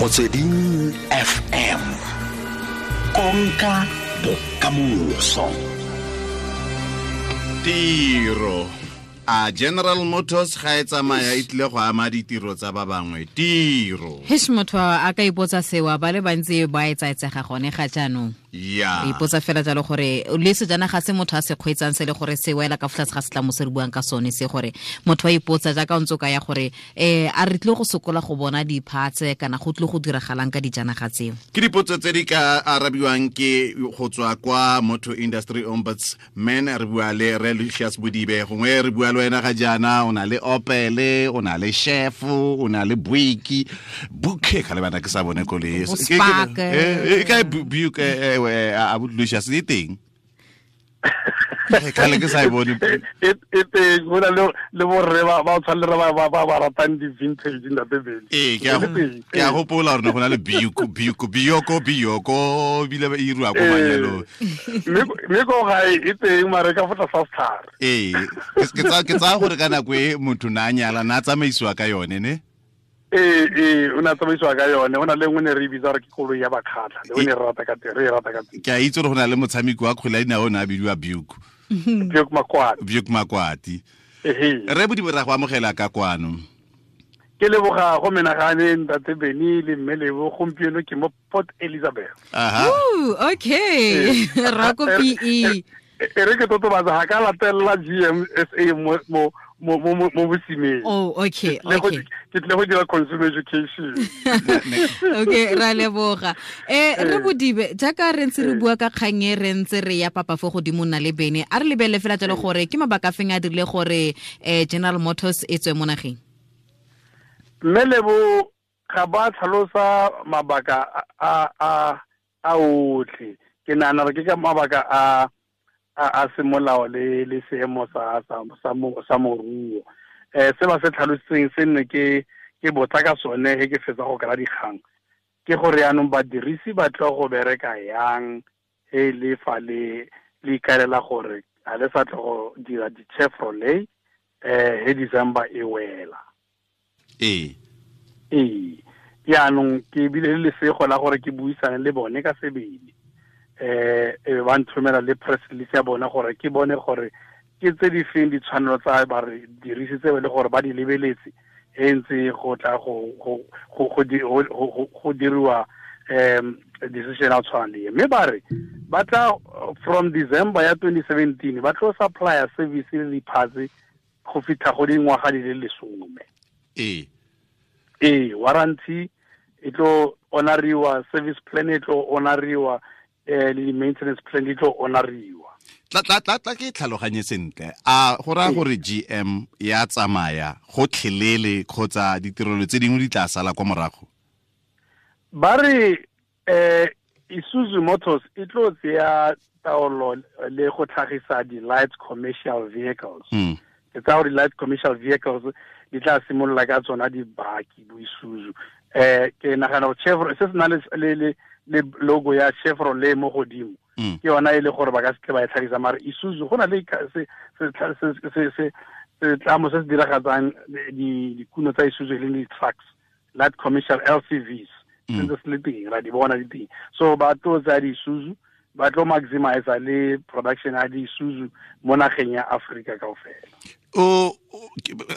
Motsweding FM, konka bokamoso. Tiro a General Motors ga e tsamaya e tlile go ama ditiro tsa ba bangwe. Tiro Hesh, motho a ka ipotsa sewa, ba le bantsi ba e tsaetsega gone ga jaanong. Ipotsa fela jalo gore le sejanaga se motho a se kgweetsang se le gore se wela ka fa tlase ga setlamo se re buang ka sone se, gore motho a ipotsa jaaka o ntse o ka ya gore a re tlile go sokola go bona di-parts kana go tlile go diragalang ka dijanaga tseo. Ke dipotso tse di ka arabiwang ke go tswa kwa Motor Industry Ombudsman. Re bua le re Lucius Bodibe. Gongwe re bua le wena ga jaana o na le Opel, o na le Chef, o na le Buick, Buke ka lebana ke sa bone koloi. Bo Spark. E kae Buick, a Lucius, e teng? Kgale ke sa e bone. E teng, go na le borre ba tshwane le ba ratang di-vintage, ntate Bele. Ee, ke a gopola gore ne go na le Buick, Buick, Bioko, Bioko, ebile e iriwa ko manyalong. Mme ko gae e teng, mare ka fa tlasa setlhare. Ee, ke tsaya gore ka nako e motho na a nyala na a tsamaisiwa ka yone, ne? Ee, o ne a tsamaisiwa ka yone. O na le nngwe ne re e bitsa gore ke koloi ya Bakgatlha, le o ne re rata ka teng, re e rata ka teng. Ke a itse gore go na le motshameki wa kgwele ya dinao o ne a bidiwa Buick. Buick Makwati. Buick Makwati. Re Bodibe, ra go amogela ka kwano. Ke leboga go menagane, ntate Beny le mme Lebo. Gompieno ke mo Port Elizabeth. Ooh, okay. Ra ko PE. E re ke totobatsa, ga ka latelela GMSA mo bosimeng. Oh, okay. Ke tle go dira consumer education. Okay, ra leboga. Re Bodibe, jaaka re ntse re bua ka kgang e, re ntse re ya papa fo godimo nna le Bene, a re lebelele fela jalo gore ke mabaka a feng a dirile gore General Motors e tswe mo nageng? Mme Lebo, ga ba tlhalosa mabaka a otlhe. Ke nahana gore ke ka mabaka a semolao le seemo sa moruo. Se ba se tlhalositseng se nne ke botsa ka sone he ke fetsa go kry-a dikgang, ke gore yaanong badirisi ba tlo go bereka yang he le fa le ikaelela gore ga le sa tlo go dira di-Chevrolet he December e wela. Ee, yaanong ke bile le lesego la gore ke buisane le bone ka sebele, e ba nthomela le press release ya bone gore ke bone gore ke tse di feng ditshwanelo tsa ba re dirise tse e le gore ba di lebeletse e ntse go tla go diriwa decision a tshwana le e. Mme ba re ba tla from December ya 2017 ba tlo supplier service le di-parts go fitlha go dingwaga di le 10. Ee, warranty e tlo honoriwa, service plan e tlo honoriwa, le di-maintenance plan di tlo honoriwa. Tla ke tlhaloganye sentle. A go raya gore GM ya tsamaya gotlhelele kgotsa ditirelo tse dingwe di tla sala kwa morago? Ba re Isuzu Motors e tlo tseya taolo le go tlhagisa di-light commercial vehicles. Ke tsaya gore di-light commercial vehicles di tla simolola ka tsona dibaki bo Isuzu. Ke nagana gore Chevrolet se se na le logo ya Chevrolet mo godimo, ke yona e le gore ba ka se tle ba e tlhagisa, mare Isuzu go na le setlamo se se diragatsang dikuno tsa Isuzu, e leng di-trucks, light commercial LCVs, sentse se le teng, ra di bona di teng. So ba tlo tsaya di-Isuzu, ba tlo maximize le production ya di-Isuzu mo nageng ya Africa kaofela. O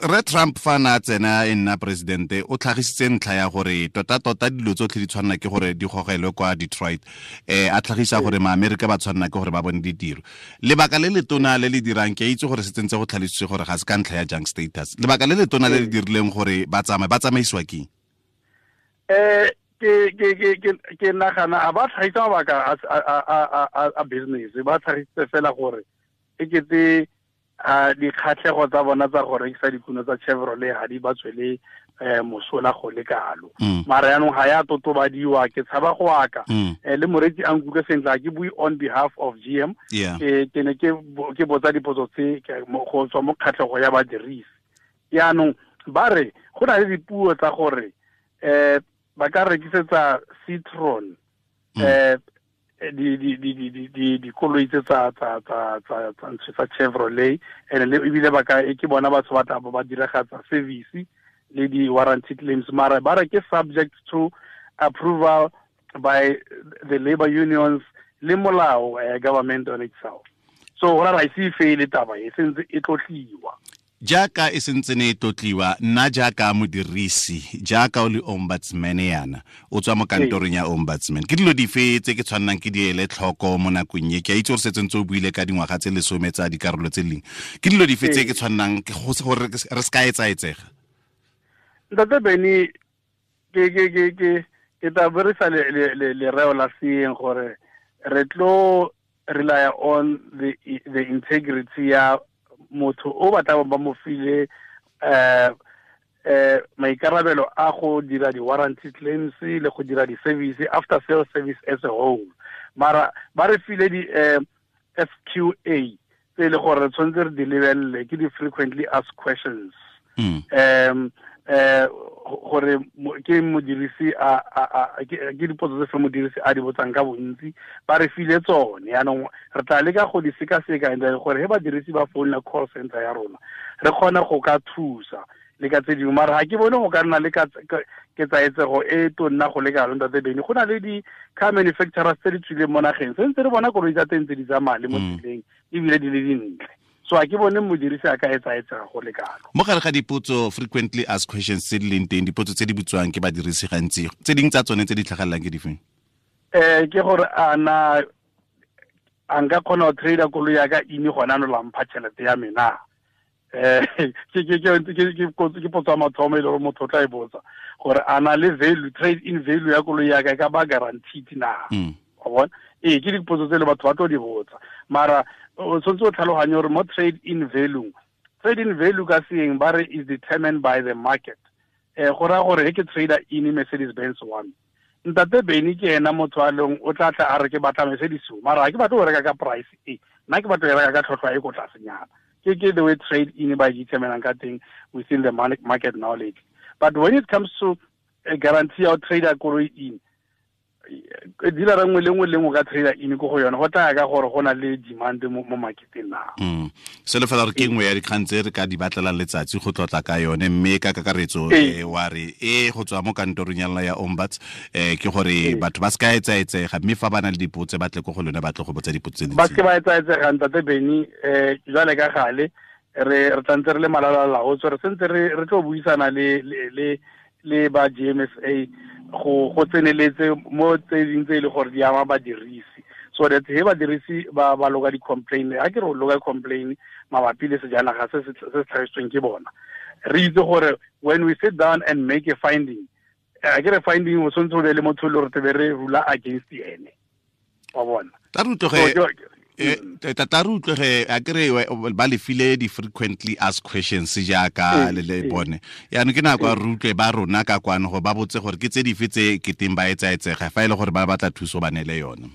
re Trump fa na tsena e nna presidente, o tlhagisitse ntlha ya gore tota-tota dilo tsotlhe di tshwanela ke gore di gogelwe kwa Detroit, a tlhagisa gore maAmerika ba tshwanela ke gore ba bone ditiro. Lebaka le letona le le dirang, ke a itse gore se tsentse go tlhalositswe gore ga se ka ntlha ya junk status, lebaka le letona le le dirileng gore ba tsamaye, ba tsamaisiwa keng? Ke nagana a ba tlhagisa mabaka a business, ba tlhagisitse fela gore e kete a dikgatlhego tsa bona tsa go rekisa dikuno tsa Chevrolet ga di ba tswele mosola go le kalo. Mara yaanong ga ya totobadiwa, ke tshaba go aka. Le moreetsi a nkutlwe sentle, ga ke bue on behalf of GM. Ke ne ke botsa dipotso tse go tswa mo kgatlhego ya badirisi. Yaanong ba re go na le dipuo tsa gore ba ka rekisetsa Citroen dikoloi tse tsa Chevrolet, and le ebile ba ka ke bona batho ba tla ba diragatsa service le di warranty claims, mara ba re ke subject to approval by the labor unions le molao government on itself. So go ra ise fele taba e sentse e tlotliwa. Jaaka e sentse ne e tlotliwa, nna jaaka modirisi, jaaka o le ombudsman yana, o tswa mo kantorong ya ombudsman, ke dilo dife tse ke tshwannang ke di ele tlhoko mo nakong e? Ke a itse gore setse ntse o buile ka dingwaga tse 10 tsa dikarolo tse leng. Ke dilo dife tse ke tshwannang gore re se ka etsaetsega? Ntate Benny, ke tla berisa lereo la seeng gore re tlo rely on the integrity ya motho o batla ba mo file maikarabelo a go dira di-warranty claims le go dira di-service, after sales service as a whole. Mara ba re file di-FQA tse e le gore re tshwanetse re di lebelele, ke di-frequently asked questions. Gore ke modirisi a ke dipotso tse fe modirisi a di botsang ka bontsi, ba re file tsone. Yaanong re tla leka go di sekaseka and gore he badirisi ba founela call center ya rona re kgone go ka thusa le ka tse dingwe. Mara ga ke bone go ka nna le ketsaetsego e tonna go le kalo, ntate Benny. Go na le di-car manufacturers tse di tswileng mo nageng, sentse re bona koloi tsa teng tse di tsamaya le mo tseleng ebile di le dintle. So a ke bone modirisi a ka etsaetsega go le kalo. Mo gare ga dipotso frequently asked questions tse di leng teng, dipotso tse di butswang ke badirisi gantsi, tse dingwe tsa tsone tse di tlhagelelang ke difeng? Ke gore a na a nka kgona go trader koloi ya ka ine gona no la mpha tšhelete ya me na? Ke potso ya mathomo e le gore motho o tla e botsa, gore a na le value, trade in value ya koloi ya ka e ka ba guaranteed na? Wa bona? Ee, ke dipotso tse le batho ba tlo di botsa. Mara o tshwanetse o tlhaloganye gore mo trade in value, trade in value ka seeng ba re is determined by the market. Go raya gore he ke trader in Mercedes Benz wa me, ntate Benny ke ena motho a leng o tla tla a re ke batla Mercedes, mara ga ke batle go reka ka price e, nna ke batla go reka ka tlhotlhwa e ko tlasenyana. Ke the way trade in ba determinang ka teng within the market knowledge. But when it comes to a guarantee ya trader koloi in, dealer nngwe le nngwe le nngwe ka trader in ko go yone, go tla ka gore go na le demand mo marketeng na. Selo fela re ke nngwe ya dikgang tse re ka di batlelang letsatsi go tlotla ka yone, mme ka kakaretso wa re go tswa mo kantorong ya lona ya ombuds, ke gore batho ba se ka etsaetsega, mme fa ba na le dipotso ba tle ko go lone, ba tle go botsa dipotso tse ba se ba etsaetsega. Ntate Benny, jwale ka gale re tlantse re le malala-laotswe, re sentse re tlo buisana le ba GMSA go tseneletse mo tse ding tse e le gore di ama badirisi, so that he badirisi ba loka di-complain, ha ke re o loka complain mabapi le sejanaga se se tlhagisitsweng ke bona, re itse gore when we sit down and make a finding, a ke re finding o tshwanetse o be le motho le gore tebe re rula against ene, wa bona. Tata re utlwege, a kere ba le file di-frequently asked questions jaaka le le bone. Yaanong ke nako ya re utlwe ba rona ka kwano gore ba botse gore ke tse dife tse keteng ba etsaetsega, fa e le gore ba batla thuso ba neele yone.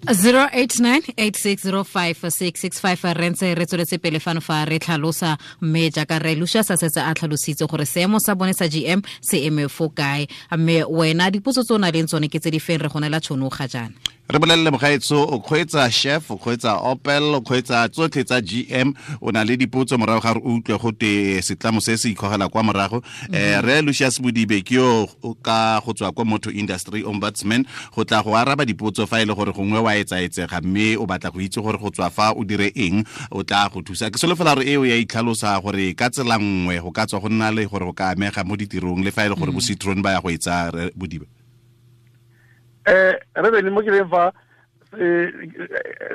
0898605665 re ntse re tsweletse pele fano fa re tlhalosa, mme jaaka re Lucius a setse a tlhalositse gore seemo sa bone sa GM se eme fo kae, mme wena dipotso tse o na leng tsone ke tse di feng, re go neela tšhono ga jaana. Re bolelele mogaetso, o kgweetsa Chef, o kgweetsa Opel, o kgweetsa tsotlhe tsa GM, o na le dipotso morago ga re utlwe go te setlamo se se ikgogela kwa morago. Re Lucius Modibe ke yo ka go tswa kwa Motor Industry Ombudsman go tla go araba dipotso fa e le gore gongwe wa etsaetsega mme o batla go itse gore go tswa fa o dire eng, o tla go thusa. Ke solofela gore eo ya itlhalosa gore ka tsela nngwe go ka tswa go nna le gore go ka amega mo ditirong le fa e le gore bo Citroen ba ya go etsa Modibe. Re bene mo ke leng fa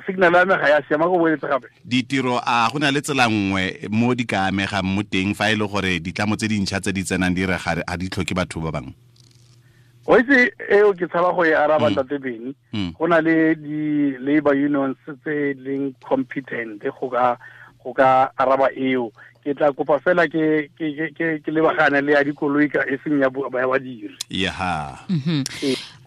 signal ya me ga ya siama, go boeletse gape. Ditiro a go na le tsela nngwe mo di ka amegang mo teng fa e le gore ditlamo tse dintšha tse di tsenang di re ga di tlhoke batho ba bangwe? O itse eo ke tshaba go e araba, ntate Benny. Go na le di-labor unions tse leng competent go ka araba eo. Ke tla kopa fela ke lebagane le ya dikoloi ka e seng ya badiri.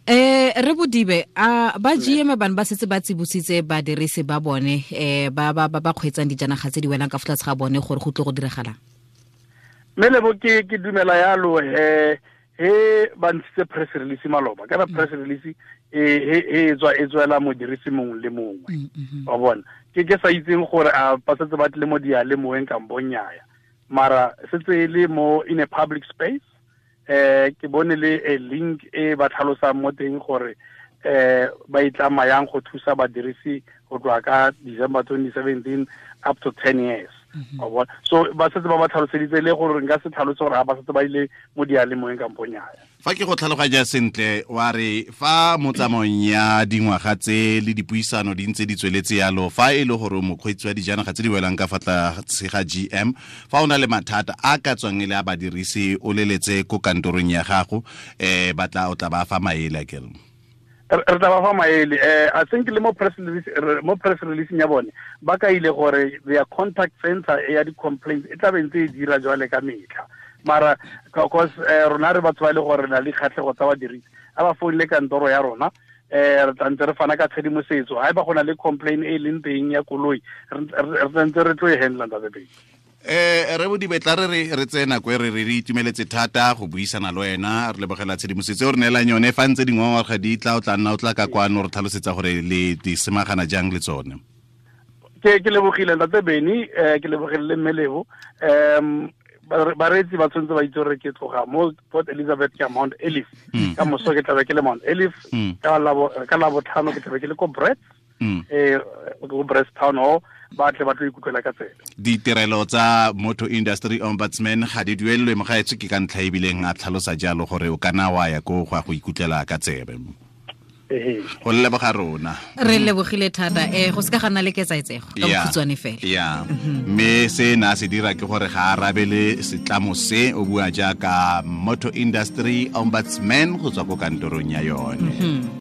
Re Bodibe, a ba GM bana ba setse ba tsibositse badirisi ba bone ba ba ba kgweetsang dijanaga tse di welang ka fa tlase ga bone gore go tle go diragalang? Mme lebo ke dumela yalo he ba ntshitse press release maloba, kana press release e tswa e tswela modirisi mongwe le mongwe, wa bona. Ke sa itseng gore a ba setse ba tle mo diyalemoyeng kampo nnyaya, mara setse e le mo in a public space. Ke bone le a link e ba tlhalosang mo teng gore ba itlama yang go thusa badirisi go tloga ka December 2017 up to 10 years. So ba setse ba ba tlhaloseditse le gore nka se tlhalose gore ga ba setse ba ile mo dialemoeng kampo nnyaya. Fa ke go tlhaloganya sentle, wa re fa mo tsamaong ya dingwaga tse le dipuisano di ntse di tsweletse yalo, fa e le gore mokgweetsi wa dijanaga tse di welang ka fa tlase ga GM, fa o na le mathata a ka tswang e le a badirisi, o leletse ko kantorong ya gago, ba tla o tla ba fa maele akere? Re tla ba fa maele. I think le mo press release ya bone ba kaile gore their contact center ya di-complaints e tla be ntse e dira jwale ka metlha. Mara because rona re batho ba le gore re na le kgatlhego tsa badirisi, a ba founile kantoro ya rona, re tla ntse re fana ka tshedimosetso. Ha eba go na le complaint e leng teng ya koloi, re tla ntse re tlo e handla ntate Pedi. Re Bodibe, tla re tseye nako e re itumeletse thata go buisana le wena, re lebogela tshedimosetso e o re neelang yone. Fa ntse dingongorega di tla, o tla nna o tla ka kwano re tlhalosetsa gore le di semagana jang le tsone. Ke lebogile ntate Beni, ke lebogile le mme Lebo. Bareetsi ba tshwanetse ba itse gore ke tloga mo Port Elizabeth ka Mount Elif. Ka moso ke tlabe ke le Mount Elif, ka Labotlhano ke tlabe ke le ko Brits, ko Brits Town Hall, ba tle ba tlo ikutlwela ka tsela. Ditirelo tsa Motor Industry Ombudsman ga di duelelwe mogaetsho, ke ka ntlha ebileng a tlhalosa jalo gore o kana wa ya ko go ya go ikutlwela ka tsebe. Go leboga rona. Re lebogile thata. Go seka ga nna le ketsaetsego ka bokhutshwane fela. Ya. Mme se na se dira ke gore ga arabele setlamo se, o bua jaaka Motor Industry Ombudsman go tswa ko kantorong ya yone.